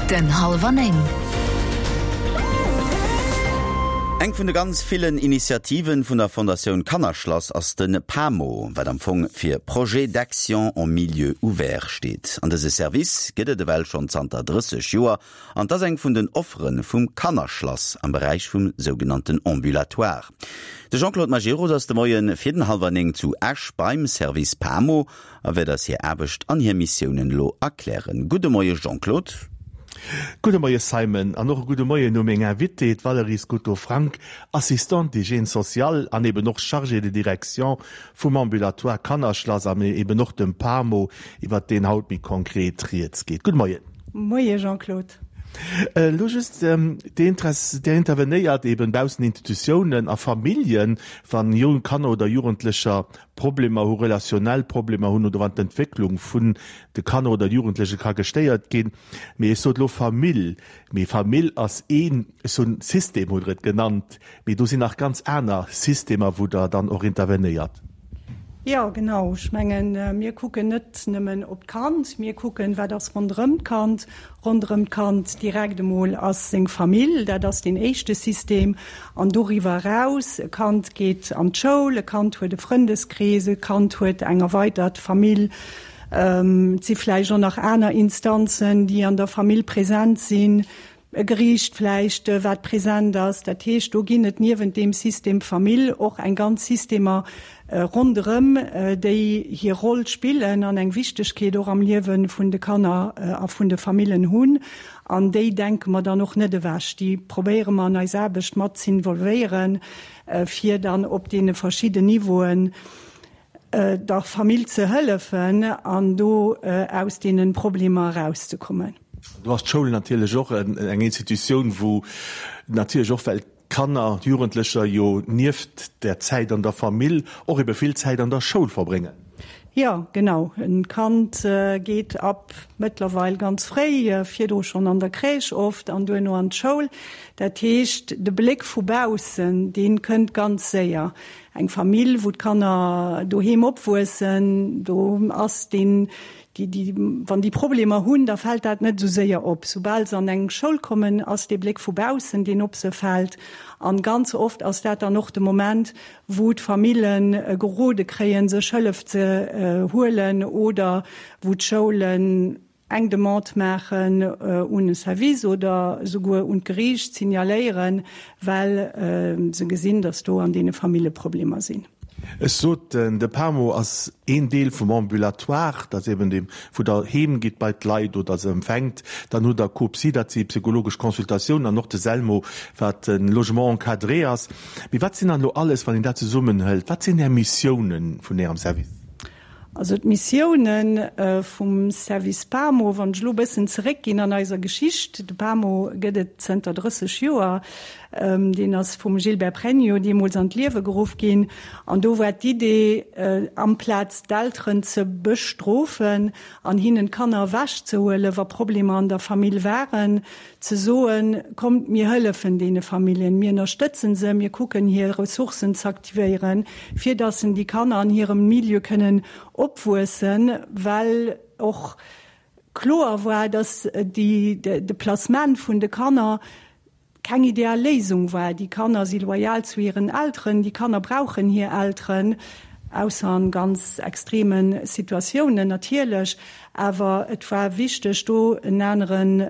Minutten hallwer 9. Eng vun de ganz villen Initiativen vun der Fondatioun Kannerschlass ass de PAMO, wat am Fong fir Projet d'action en milieu ouvert steet. An dëse Service gëtt et ewell schonn zanter 30 Joer an 't ass eng vun den Offere vum Kannerschlass am Beräich vum sougenannten Ambulatoire. De Jean-Claude Majerus ass de Moie fir den hallwer 9 zu Esch beim Service PAMO a wäert eis hir Aarbecht an hir Missiounen elo erklären. Gudde Moie Jean-Claude. Gudde Moie Simon an och e gudde Moien u meng Invitée, d'Valérie Scuto-Frank, Assistante d'hygiène sociale an eben och Chargée de direction vum Ambulatoire Kannerschlass an eben och dem PAMO, iwwert deen haut méi konkret rieds geet. Gudde Moien. Moie Jean-Claude. Elo just, Dir intervenéiert eben baussent Institutiounen a Familljen, wann jonk Kanner oder Jugendlecher Problemer hu, relationell Problemer hunn oder wann d'Entwécklung vun de Kanner oder Jugendleche ka gestéiert ginn. Mee ech sot elo Famill, mee Famill ass een, ech soen System hutt Der et genannt, mee do sinn nach ganz aner Systemer, wou Der dann och intervenéiert. Jo, genau. Ech mengen, mir kucken net nëmmen op d'Kand, mir kucken, wat ass ronderëm d'Kand. Ronderëm d'Kand direkt emol ass seng Famill, dat ass deen éischte System. An doriwwer eraus, e Kand geet an d'Schoul, e Kand huet e Frëndeskrees, e Kand huet eng erweitert Famill. Et si vläicht och nach aner Instanzen, déi an der Famill present sinn, e Geriicht vläicht, wat present ass. Dat heescht, do ginn et niewent deem System Famill och eng ganz Systemer ronderëm, déi hir Roll spillen an eng Wichtegkeet och am Liewe vun de Kanner a vun de Famillen hunn. An déi denke mer dann och net ewech. Déi probéiere mer an eis Aarbecht mat z'involvéieren, fir dann op deene verschidden Niveauen der Famill ze hëllefen an do aus deene Problemer erauszekommen. Do ass d'Schoul natierlech och eng Institutioun, wou natierlech och, well d'Kanner, d'Jugendlecher jo nieft der Zäit an der Famill och ebe vill Zäit an der Schoul verbréngen. Jo, genau. E Kand geet ab mëttlerweil ganz fréi, virdru schonn an der Crèche oft an duerno an d'Schoul. Dat heescht, de Bléck vu baussen, dee kënnt ganz séier. Eng Famill, wou d'Kanner doheem opwuessen, do ass deen Déi, déi, wann déi Problemer hunn, da fält dat net esou séier op. Soubal se an eng Schoul kommen, ass dee Bléck vu baussen, deen op se fält. An ganz oft ass dat dann och de Moment, wou d'Famille gerode kréien, sech Hëllef ze huelen oder wou d'Schoulen eng Demande maachen un e Service oder esouguer un d'Geriicht signaléieren, well se gesinn, datt do an deene Famille Problemer sinn. Ech sot, de PAMO ass een Deel vum Ambulatoire, dat ass eben deem, wou Der heem gitt bei d'Leit oder se empfänkt. Dann hutt Der COPSY, dat si psychologesch Consultatiounen, an och de SELMO, wat e Logement encadré ass. Mee wat sinn dann elo alles, wann een dat zesummenhëlt, wat sinn Är Missiounen vun Ärem Service? Also d'Missioune vum Service PAMO, wann ech elo e bëssen zeréckginn an eiser Geschicht, de PAMO gëtt et zënter 30 Joer, deen ass vum Gilbert Pregno deemools an d'Liewe geruff ginn an do war d'Idee, amplaz d'Elteren ze bestrofen an hinnen d'Kanner ewechzehuelen, wa Problemer an der Famill waren, Ze soen, Kommt, mir hëllefen deene Familljen, mir ënnerstëtzen se, mir kucken hir Ressourcen z'aktivéieren, fir datt en déi Kanner an hirem Milieu kënnen opwuessen, well och kloer war, datt de Placement vun de Kanner keng ideal Léisung war. Déi Kanner si loyal zu hiren Elteren, déi Kanner brauchen hir Elteren, ausser an ganz extreme Situatiounen natierlech. Awer et war wichteg, do en aneren,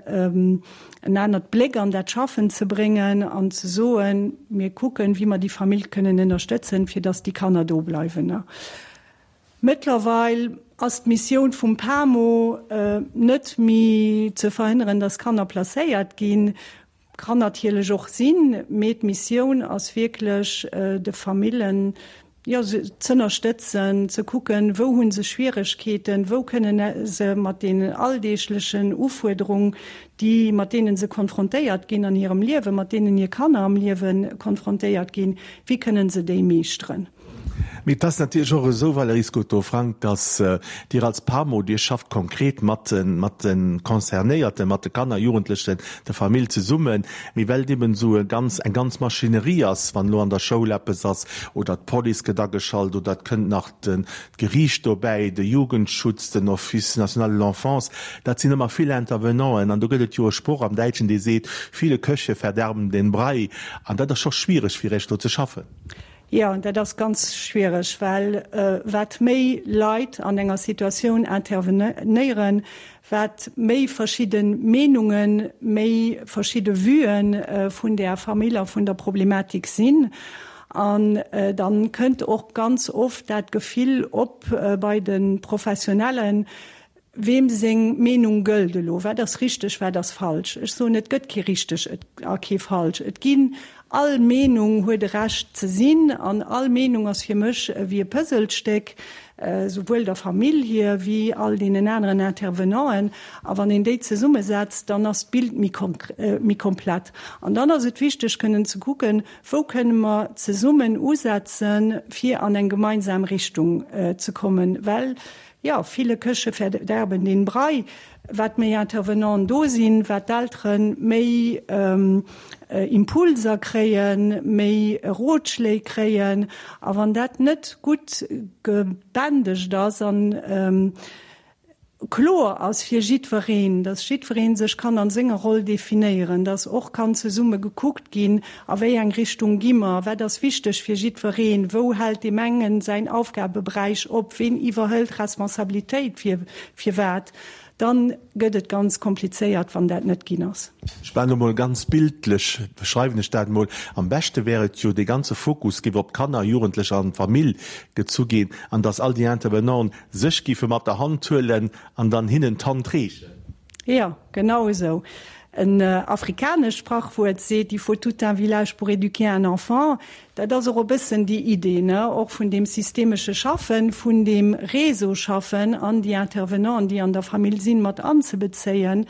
en anert Bléck an dat Schaffen ze bréngen an ze soen, mir kucken, wéi mer déi Famill kënnen ënnerstëtzen, fir dass déi Kanner do bleiwen. Mëttlerweil ass d'Missioun vum PAMO net méi ze verhënneren, dass Kanner placéiert ginn, kann natierlech och sinn, mee d'Missioun ass wierklech de Famillen, jo, z'ënnerstëtzen, ze kucken, wou hu se Schwieregkeeten, wou kënnen se mat deenen alldeeglechen Ufuerderung, déi, mat deene se konfrontéiert ginn an hirem Liewen, mat deenen hir Kanner am Liewe konfrontéiert ginn, wéi kënnen se déi meeschteren. Mee et ass natierlech och esou, Valérie Scoto-Frank, dass Dir als PAMO, Dir schafft konkret mat de, mat de Concernéierten, mat de Kanner, Jugendlechen, der Famill zesummen. Mee well et eben esou e ganz, eng ganz Maschinerie ass, wann elo an der Schoul eppes ass oder d'Police gëtt ageschalt oder et kënnt nach den, d'Geriicht dobäi, de Jugendschutz, den Office national de l'enfance, dat sinn ëmmer vill Intervenanten. An do gëtt et jo e Sproch am Däitschen, dee seet, Viele Köche verderben den Brei. An dat ass scho schwiereg fir Iech do ze schaffen. Jo, dat ass ganz schwiereg, well wat méi Leit an enger Situatioun intervenéieren, wat méi verschidde Meenungen, méi verschidde Vuen vun där Famill a vun der Problematik sinn. An dann kënnt och ganz oft dat Gefill op bei de Professionellen, Weem seng Meenung gëllt elo? Wat ass richteg, wat ass falsch? Ech soen, et gëtt kee richteg a kee falsch. Et ginn, all Meenung huet e Recht ze sinn an all Meenung ass fir mech ewéi e Puzzlestéck, souwuel der Famill hir wéi all deenen aneren Intervenanten. A wann een déi zesummesetzt, dann ass d'Bild méi komplett. An dann ass et wichteg kënnen ze kucken, Wou kënne mer zesummen usetzen, fir an eng gemeinsam Richtung ze kommen? Well, jo, viele Köche verderben den Brei. Wat méi Intervenanten do sinn, wat d'Eltere méi Impulser kréien, méi Rotschléi kréien. A wann dat net gutt gebändegt ass an kloer ass fir jiddwereen, dass jiddweree sech kann an senger Roll definéieren, dass och kann zesumme gekuckt ginn, a wéi eng Richtung gi mer, wat ass wichteg fir jiddwereen, wou hält deem engen säin Aufgabeberäich op, ween iwwerhëlt Responsabilitéit fir fir wat, dann gëtt et ganz komplizéiert, wann dat net ginn ass. Ech maachen elo mol ganz bildlech, beschreiwen ech dat emol, Am beschte wär et jo, dee ganze Fokus géif op d'Kanner, Jugendlecher an d'Famill gezu ginn an dass all déi Intervenanten sech giffe mat der Hand huelen an dann hinnen d'Hand reechen. Jo, genau esou. En afrikanescht Sprachwuert seet, Il faut tout un village pour éduquer un enfant. Dat ass och e bëssen déi Idee, ne, och vun deem systemesche Schaffen, vun deem Réseau-Schaffen an déi Intervenanten, déi an der Famill sinn, mat anzebezéien,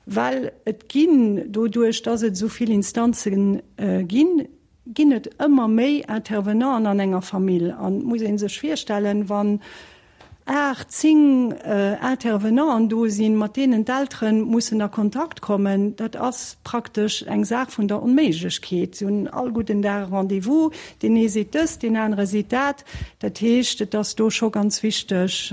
well et ginn, doduerch dass et esou vill Instanze ginn, ginn et ëmmer méi Intervenanten an enger Famill. An et muss ee sech virstellen, wann 8, 10 Intervenanten do sinn, mat deenen d'Eltere mussen a Kontakt kommen, dat ass praktesch eng Saach vun der Onméiglechkeet. Si hunn all gudden Dag e Rendez-vous, deen ee seet dëst, deen anere seet dat. Dat heescht, et ass do scho ganz wichteg,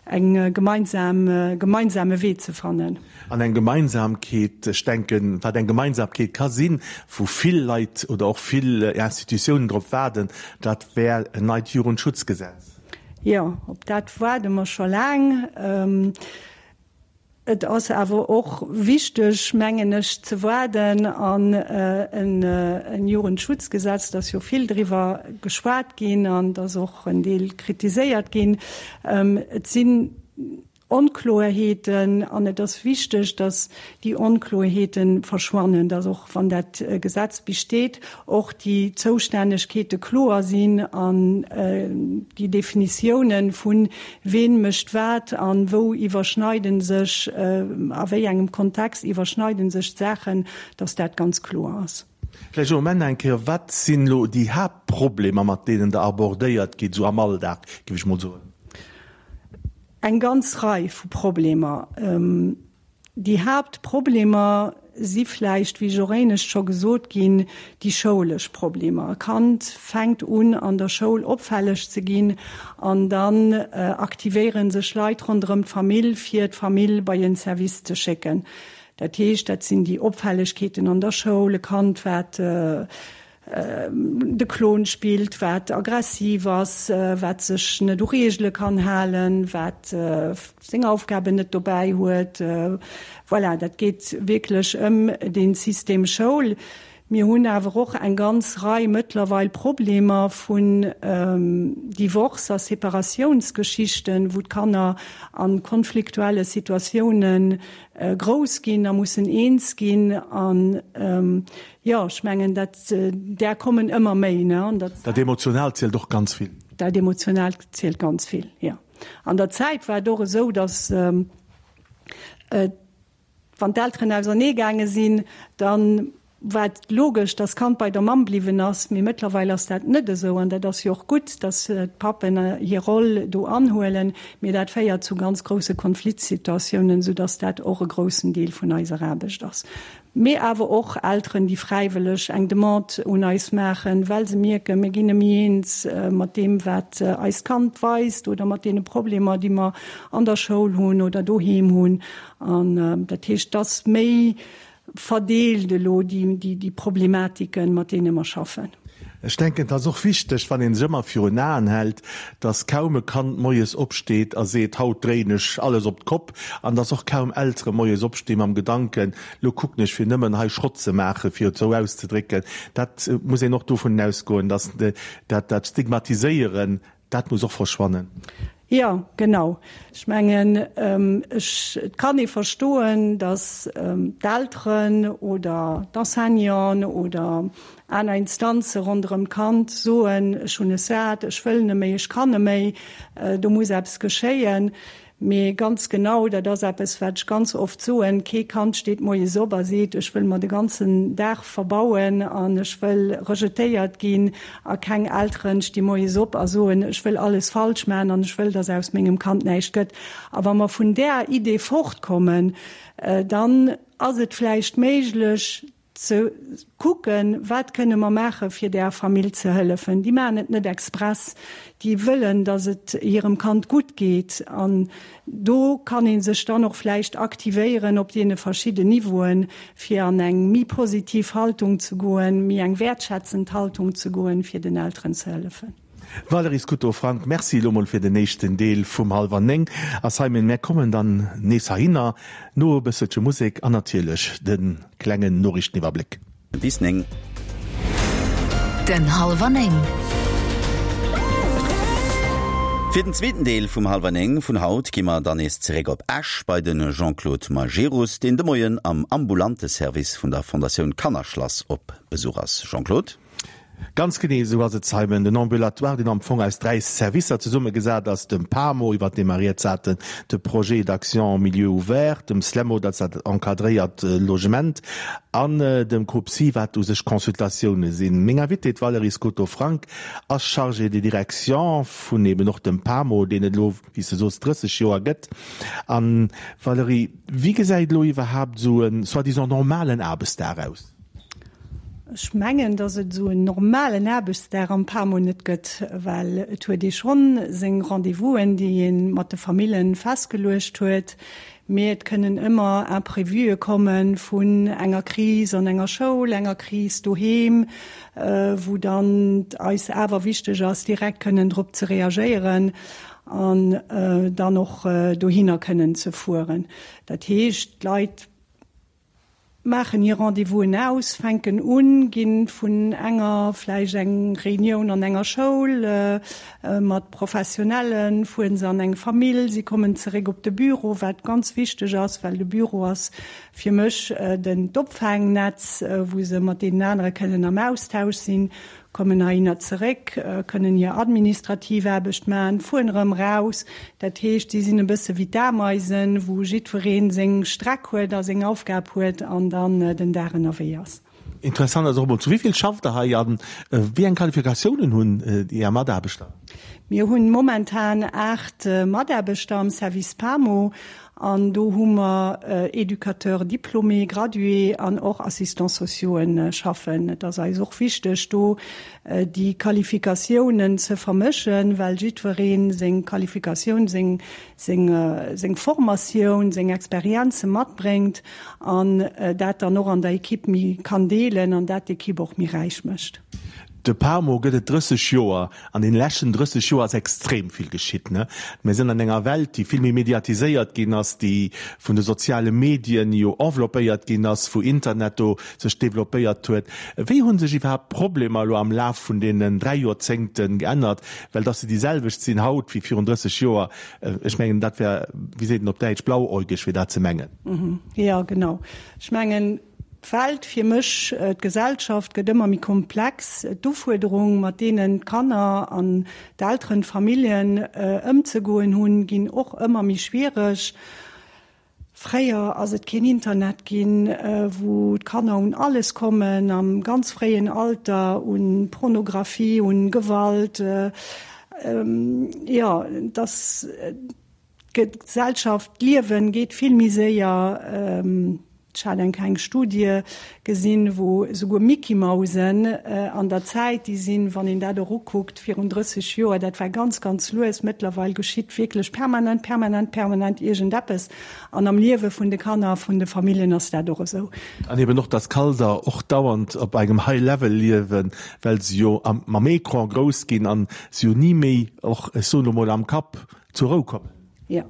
eng gemeinsam, gemeinsame Wee ze fannen. An eng Gemeinsamkeet, ech denken, wat eng Gemeinsamkeet ka sinn, wou vill Leit oder och vill Institutiounen drop waarden, dat wär en neit Jugendschutzgesetz. Jo, op dat waarde mer scho laang. Et ass awer och wichteg, mengen ech, ze waarden an en Jugendschutzgesetz, et ass jo vill driwwer geschwat ginn an et ass och en Deel kritiséiert ginn. Et sinn Onkloerheeten an et ass wichteg, datt déi Onkloerheete verschwannen, datt och wann dat Gesetz besteet, och déi Zoustännegkeete kloer sinn an déi Definitiounen vun ween mécht wat an wou iwwerschneiden sech, a wéi engem Kontext iwwerschneiden sech d'Saachen, datt dat ganz kloer ass. Vläicht elo um Enn eng Kéier, Wat sinn elo déi Haaptproblemer, mat deenen Der abordéiert gitt, esou am Alldag, géif ech mol soen? Eng ganz Rei vu Problemer. Déi Haaptproblemer si vläicht, wéi ech och éinescht scho gesot ginn, déi schoulesch Problemer. E Kand fänkt un an der Schoul opfälleg ze ginn an dann aktivéiere sech Leit ronderëm d'Famill, fir d'Famill bei en Service ze schécken. Dat heescht, dat sinn déi Opfällegkeeten an der Schoul, e Kand wat de Klon spillt, wat aggressiv ass, wat sech net u Reegele kann halen, wat seng Aufgaben net dobäi huet. Voilà, dat geet wierklech ëm dee System Schoul. Mir hunn awer och eng ganz Rei mëttlerweil Problemer vun Divorce a Separatiounsgeschichten, wou d'Kanner a konfliktuelle Situatioune grouss ginn a mussen eens ginn. An Jo, ech mengen, dat, där kommen ëmmer méi, ne? An der. Dat Emotionaalt zielt och ganz vill. Dat Emotionaalt zielt ganz vill, jo. An der Zäit war et och esou, datt, wann d'Elteren auserneegaange sinn, da. War et logesch, dass d'Kand bei der Mamm bliwwen ass, mee mëttlerweil ass dat net esou an dat ass jo och gutt, dass d'Pappen hir Roll do anhuelen, mee dat féiert zu ganz grousse Konfliktsituatiounen, soudass dat och e groussen Deel vun eiser Aarbecht ass. Mee awer och Elteren, déi fräiwëlleg eng Demande un eis maachen, well se mierken, mir ginn net méi eens mat deem, wat eist Kand weist oder mat deene Problemer, déi mer an der Schoul hunn oder doheem hunn. An dat heescht, dass méi verdeelt elo déi Problematiken, mat deene mer schaffen. Ech denken, et ass och wichteg, wann ee sech ëmmer virun Aen hält, dass kaum e Kand moies opsteet a seet, haut dréien ech alles op d'Kopp, an dass och kaum Eltere moies opsti mam Gedanken, lo kucken ech fir nëmmen hei Schrott ze maachen, fir et esou auszedrécken. Dat muss een och dovun ausgoen, dass dat Stigmatiséieren Dat muss och verschwannen. Jo, genau. Ech mengen, ech, et kann ee verstoen, datt d'Elteren oder d'Enseignanten oder aner Instanze ronderëm d'Kand soen, ech hunn es sat, ech wëll net méi, ech kann net méi, do muss eppes geschéien. Mee ganz genau, dat ass eppes, wat ech ganz oft soen, Kee Kand steet moies op a seet, ech wëll mer de ganzen Dag verbauen an ech wëll rejetéiert ginn. A keng Elteren sti moies op a soen, ech wëll alles falsch maachen an ech wëll, dass aus mengem Kand näischt gëtt. A wa mer vun där Idee fortkommen, dann ass et vläicht méiglech, ze kucken, wat kënne mer maache fir där Famill ze hëllefen. Déi maachen et net express, déi wëllen, datt et hirem Kand gutt geet. An do kann ee sech dann och vläicht aktivéieren op deene verschidden Niveauen, fir an eng méi positiv Haltung ze goen, méi eng wäertschätzend Haltung ze goen, fir den Elteren ze hëllefen. Valérie Scuto-Frank, Merci elo mol fir den éischten Deel vum Halwer 9. A Simon, mär kommen dann nees heihinner no e bësselche Musek an natierlech de klengen Noriichteniwwerbléck. Bis 9. Den Halwer 9. Fir den zweeten Deel vum Halwer 9 vun haut gi mer dann nees zeréck op Esch bei de Jean-Claude Majerus, deen de Moien am ambulante Service vun der Fondatioun Kannerschlass op Besuch ass. Jean-Claude? Ganz genee esou ass et, Simon. Den Ambulatoire, deen am Fong aus 3 Servicer zesummegesat ass, dem PAMO, iwwert dee mer rieds haten, de Projet d'action en milieu ouvert, dem SLEMO, dat ass dat encadréiert Logement, an dem COPSI, wat u sech Consultatioune sinn. Meng Invitée, d'Valérie Scoto-Frank, ass Chargée de direction vun eben och dem PAMO, deen et elo, wéi s de soos, 30 Joer gëtt. An, Valérie, wéi gesäit elo iwwerhaapt esou e soi-disant normalen Aarbechtsdag aus? Ech mengen, datt et esou en normalen Aarbechtsdag am PAMO net gëtt, well et huet ee schonn seng Rendez-vousen, déi ee mat de Famillen festgeluecht huet, mee et kënnen ëmmer Imprévuë komme vun enger Kris an enger Schoul, enger Kris doheem, wou dann et eis awer wichteg ass, direkt kënnen drop ze reagéieren an dann och dohinner kënnen ze fueren. Dat heescht, d'Leit maachen hir Rendez-vousen aus, fänken un, gi vun enger vläicht eng Reunioun an enger Schoul mat Professionellen, fueren se an eng Famill, si kommen zeréck op de Büro, wat ganz wichteg ass, well de Büro ass fir mech den d'Opfaangnetz, wou se mat deenen anere kënnen am Austausch sinn. kommen heihinner zeréck, kënnen hir administrativ Aarbecht maachen, fueren erëm raus. Dat heescht, si sinn e bësse wéi d'Ameisen, wou jiddweree seng Streck huet a seng Aufgab huet an dann den Dag ënnerwee ass. Interessant ass och emol, zu wéi vill schafft Der hei a wéi eng Qualifikatiounen hunn Är Mataarbechter? Mir hunn momentan 8 Mataarbechter am Service PAMO An do hu mer Éducateurs diplômés, gradués an och Assistants sociauxen schaffen. Et ass eis och wichteg, do déi Qualifikatiounen ze vermëschen, well jiddweree seng Qualifikatioun, seng, seng, seng Formatioun, seng Experienze matbréngt an dat dann och an der Equipe méi kann deelen an dat d'Equipe och méi räich mécht. De PAMO gëtt et 30 Joer. An den leschten 30 Joer ass extrem vill geschitt. Mir sinn an enger Welt, déi vill méi mediatiséiert ginn ass, déi vun de soziale Medien jo enveloppéiert ginn ass, wou Internet do sech developpéiert huet. Wéi hu sech iwwerhaapt d'Problemer elo am Laf vun deenen 3 Joerzéngte geännert? Well dass se déi selwecht sinn haut wéi virun 30 Joer, ech mengen, dat wär, wéi seet een op Däitsch, blauäugeg, fir dat ze mengen. Jo, genau. Ech mengen, D'Welt, fir mech d'Gesellschaft, gëtt ëmmer méi komplex. D'Ufuerderung, mat deenen d'Kanner an d'Elteren, d'Familljen ëmzegoen hunn, ginn och ëmmer méi schwiereg. Fréier ass et keen Internet ginn, wou d'Kanner un alles kommen, am ganz fréien Alter, un Pornographie, un Gewalt. Jo, et ass d'Gesellschaft, d'Liewen geet vill méi séier. Ech hat eng kleng Studie gesinn, wou esouguer Mickey-Mausen an der Zäit, déi sinn, wann een dat och ukuckt, virun 30 Joer, dat war ganz, ganz lues. Mëttlerweil geschitt wierklech permanent, permanent, permanent iergendeppes. An am Liewe vun de Kanner a vun de Familljen ass dat och esou. An eben och, dass Kalder och dauernd op engem High Level liewen, well se jo mam Ecran grouss ginn an se jo ni méi och, ech soen elo mol, am Kapp zur Rou kommen. Jo.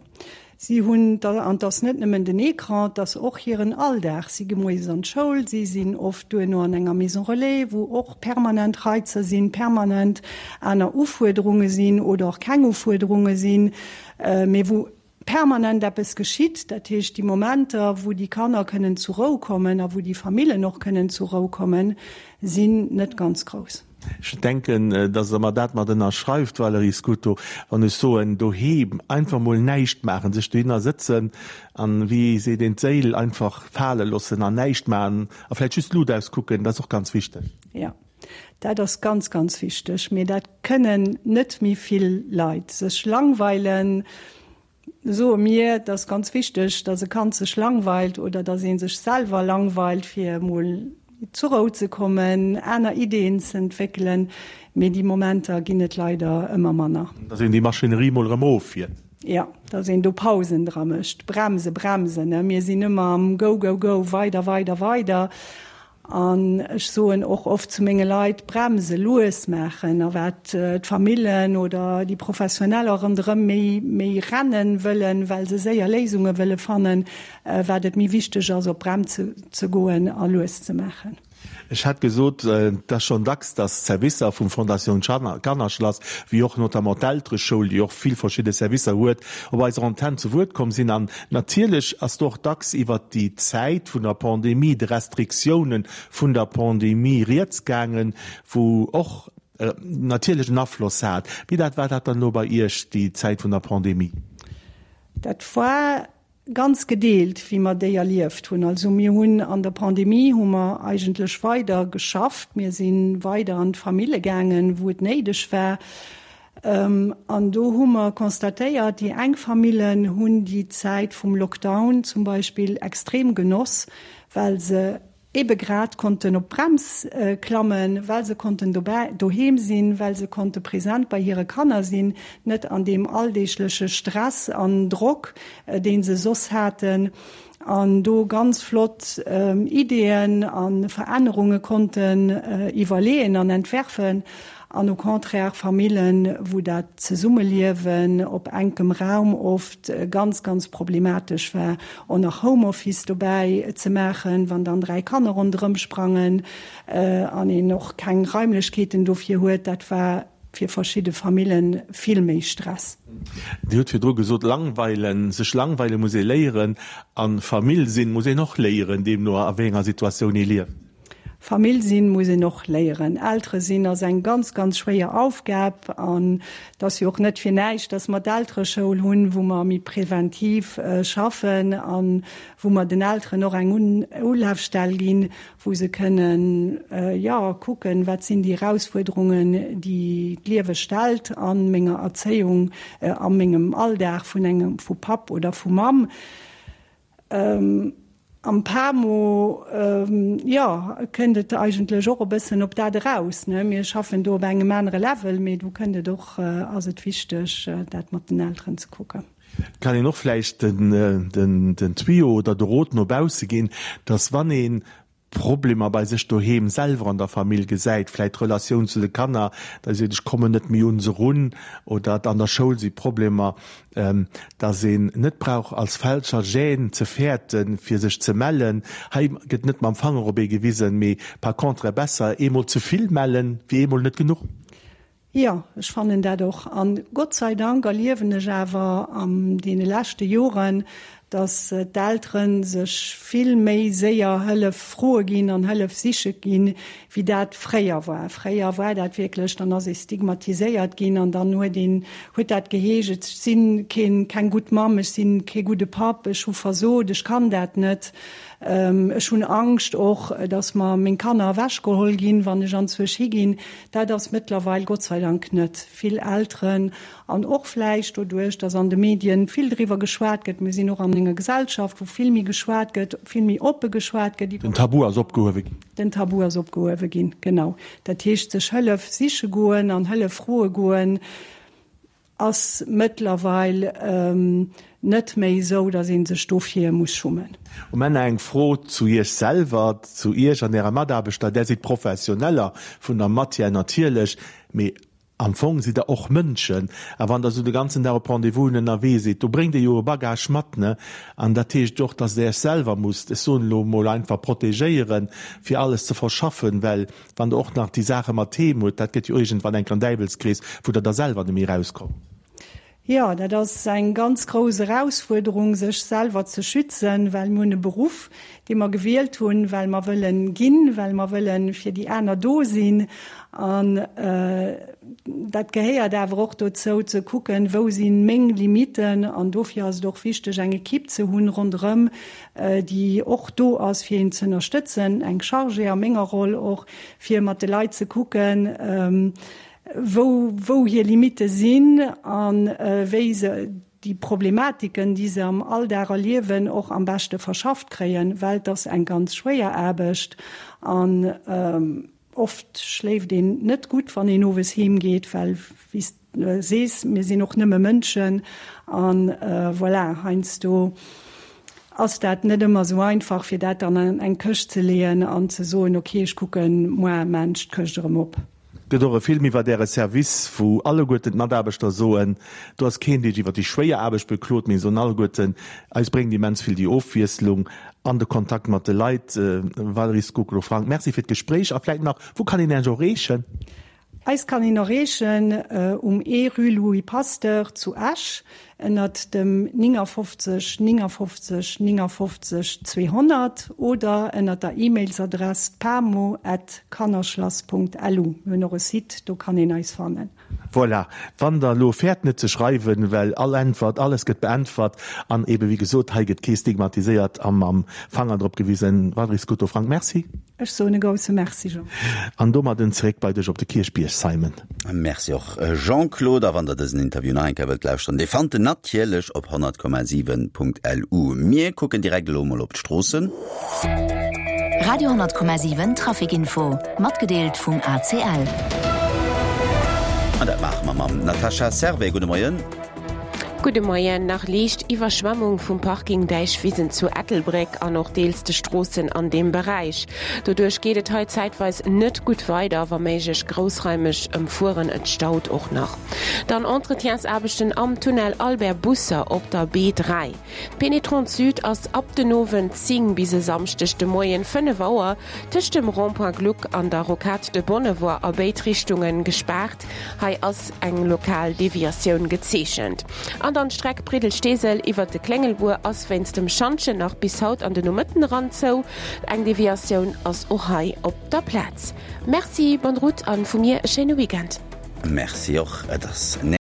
Si hunn, an 't ass net nëmmen den Ecran, 't ass och hiren Alldag. Si gi moies an d'Schoul, si sinn oft duerno an enger Maison relais, wou och permanent Reizer sinn, permanent aner Ufuerderunge sinn oder och keng Ufuerderunge sinn, mee wou permanent eppes geschitt. Dat heescht, déi Momenter, wou déi Kanner kënnen zur Rou kommen a wou déi Famillen och kënnen zur Rou kommen, sinn net ganz grouss. Ech denken, dass Der mer dat mat ënnerschreift, Valérie Scuto, wann ech soen, doheem einfach mol näischt maachen, sech dohinner sëtzen an, wéi seet een, d'Séil einfach fale loossen an näischt maachen a vläicht just d'Lut auskucken, dat ass och ganz wichteg. Jo, dat ass ganz, ganz wichteg. Mee dat kënnen net méi vill Leit. Sech langweilen, soe mir, et ass ganz wichteg, dass e Kand sech langweilt oder dass ee sech selwer langweilt, fir emol zur Rou ze kommen, aner Ideeën ze entwéckelen. Mee déi Momenter ginn et leider ëmmer manner. Dass een déi Maschinerie mol erëm offiert. Jo, dass een do Pausen dra mécht. Bremse, bremsen, ne? Mir sinn ëmmer am Go, go, go, weider, weider, weider. An ech soen och oft zu menge Leit, bremse, lues maachen. A wat d'Famillen oder déi Professioneller ronderëm méi, méi rennen wëllen, well se séier Léisunge wëlle fannen, wat et méi wichteg ass, op d'Brems ze goen a lues ze maachen. Ech hat gesot, et ass schonn dacks, datt d'Servicer vum Fondation Kannerschlass, wéi och notamment d'Eltereschoul, déi och vill verschidde Servicer huet, op eiser Antenn zu Wuert komm sinn. An natierlech ass do och dacks iwwert déi Zäit vun der Pandemie, de Restriktiounen vun der Pandemie rieds gaangen, wou och natierlech en Afloss hat. Wéi dat war dat dann elo bei Iech, déi Zäit vun der Pandemie? Dat war Ganz gedeelt, wéi mer déi erlieft hunn. Also mir hunn an der Pandemie hu mer eigentlech weider geschafft. Mir si weider an d'Famille gaangen, wou et néideg war. An do hu mer constatéiert, déi eng Famillen hunn déi Zäit vum Lockdown zum Beispill extrem genoss, well se ebe grad konnten op d'Brems klammen, well se konnten dobäi, doheem sinn, well se konnte present bei hire Kanner sinn, net an deem alldeegleche Stress an Drock, dee se soss haten, an do ganz flott Ideeën a Verännerunge konnten iwwerleeën an entwerfen. An au contraire Famillen, wou dat Zesummeliewen op enkem Raum oft ganz, ganz problematesch war, och nach Homeoffice dobäi ze maachen, wann dann 3 Kanner ronderëm sprangen an een och keng Raimlechkeeten dofir huet, dat war fir verschidde Famillen vill méi Stress. Dir hutt virdru gesot, langweilen, sech langweile muss ee léieren a Famill sinn muss een och léieren, deemno a wéi enger Situatioun ee lieft. Famill sinn muss een och léieren. Eltere sinn ass eng ganz, ganz schwéier Aufgab an et ass jo och net fir näischt, dass mer d'Eltereschoul hunn, wou mer méi präventiv schaffen a wou mer den Elteren och eng Ulafstell ginn, wou se kënnen, jo, kucken, wat sinn déi Erausfuerderungen, déi d'Liewe stellt a menger Erzéiung, a mengem Alldag vun engem, vu Papp oder vu Mamm. Am PAMO, jo, kënnt et eigentlech och e bëssen op dat eraus, ne? Mir schaffen do op engem anere Level, mee do kënnt et och, ass et wichteg, dat mat den Elteren ze kucken. Et kann een och vläicht den Tuyau oder de Rot no bausse ginn, dass wann ee Problemer bei sech doheem selwer an der Famill gesäit, vläit d'Relatioun zu de Kanner, datt ee seet, ech kommen net méi un se run oder an der Schoul si Problemer, datt een net brauch als Fälscher Gêne ze fäerten, fir sech ze mellen. Hei gëtt net mam Fanger op ee gewisen, mee par contre besser eemol ze vill mellen, wéi eemol net genuch. Jo, ech fannen dat och. An Gott sei Dank erliewen ech awer an deene leschte Joren, Dass d'Eltere sech vill méi séier Hëllef froe ginn an Hëllef siche ginn, wéi dat fréier war. Fréier war dat wierklech, dann ass ee stigmatiséiert ginn an dann huet een, huet dat geheescht, ech si keen, keng gutt Mamm, ech si kee gudde Papp, ech hu versot, ech kann dat net, ech hunn Angscht och, dass mer meng Kanner ewechgeholl ginn, wann ech anzwousch higinn. Dat ass mëttlerweil Gott sei Dank net. Vill Elteren An och vläicht doduerch, dass an de Medien vill driwwer geschwat gëtt, mir sinn och an enger Gesellschaft, wou vill méi geschwat gëtt, vill méi oppe geschwat gëtt iwwer. Den Tabu ass opgehuewe ginn. Den Tabu ass opgehuewe ginn, genau. Dat heescht, sech Hëllef siche goen an Hëllef froe goen, ass mëttlerweil net méi esou, dass ee sech dofir muss schummen. Um Enn eng Fro zu Iech selwer, zu Iech an Ärer Mataarbechter. Där sidd Professioneller vun der Matière natierlech, mee Am Fong sidd der och Mënschen, a wann der esou de ganzen Dag op Rendez-vousen ënnerwee sidd, do bréngt Dir jo e Bagage mat, ne? An dat heescht och, dass Der Iech selwer musst, ech soen elo emol einfach, protegéieren, fir alles ze verschaffen, well wann Der och nach déi Saache mat heem hutt, dat gëtt jo iergendwann enk en Däiwelskrees, wou Der da selwer net méi erauskommt. Jo, dat ass eng ganz grouss Erausfuerderung, sech selwer ze schützen, well mir hunn e Beruff, dee mer gewielt hunn, well mer wëllen ginn, well mer wëllen fir déi aner do sinn. An dat gehéiert awer och dozou, ze kucken, wou si meng Limiten. An dofir ass et och wichteg, eng Ekipp ze hunn ronderëm, déi och do ass, fir een ze ënnerstëtzen, eng Chargée a menger Roll och, fir mat de Leit ze kucken, wou wou hir Limitte sinn a wéi se déi Problematiken, déi se am Alldag erliewen, och am beschte verschafft kréien, well et ass eng ganz schwéier Aarbecht an oft schléift een net gutt, wann een owes heem geet, well, wéi s de sees, mir sinn och nëmme Mënschen an voilà, heiansdo ass dat net ëmmer esou einfach, fir dat dann an eng Këscht ze leeën an ze soen, ok, ech kucken muar maan ech d'Këscht erëm op. Gëtt och e Film iwwert Äre Service, wou alleguerten d'Mataarbechter soen, do ass keen, dee sech iwwert déi schwéier Aarbecht beklot, mee soen alleguerten, eis bréngt immens vill déi Ofwiesslung an de Kontakt mat de Leit. Valérie Scocolo-Franck, Merci fir d'Gespréich a vläit nach, wou kann een Iech erreechen? Eis kann een erreechen um E Rue Louis Pasteur zu Esch Ënnert dem 59 59 59 200 oder ënnert der E-Mailsadress pamo at kannerschlass.lu. Mir hunn och e Site, do kann een eis fannen. Voilà, wann der elo fäert net ze schreiwen, well all Äntwert, alles gëtt beäntwert an eben wéi gesot, hei gëtt kee stigmatiséiert a mam Fanger drop gewisen. Valérie Scuto-Frank, Merci. Ech soen e grousse Merci, Jean. An domadden zeréck bei dech op de Kierchbierg, Simon. Merci och Jean-Claude. A wann der dësen Interview nach eng Kéier wëllt lauschteren, dee fannt en natierlech op 100,7.lu. Mir kucken direkt elo mol op d'Stroossen. Radio 10,7 Traficinfo, matgedeelt vum ACL. An dat maache mer mam Natascha Servais. Gudde Moien. Gudde Moien. Nach liicht Iwwerschwemmung vum Parking Däichwisen zu Ettelbréck an och deels de Stroossen an deem Beräich. Doduerch geet et hei zäitweis net gutt weider, wa méiglech groussraimeg ëmfueren. Et staut och nach. Dann Entretiensaarbechten am Tunnel Albert Busser op der B3. D'Pénétrante Sud ass ab den Owend 10 bis e Samschdeg de Moien 5 Auer tëscht dem Rond-point Gluck an der Rocade de Bonnevoie a béid Richtunge gespaart. Hei ass eng lokal Deviatioun gezeechent. An dann d'Streck Briddel-Steesel iwwert de Kléngelbuer ass wéinst dem Schantjen nach bis haut an de Nomëtten eran zou. Eng Deviatioun ass och hei op der Plaz. Merci, bonne route an vu mir e schéine Weekend. Merci och, et ass.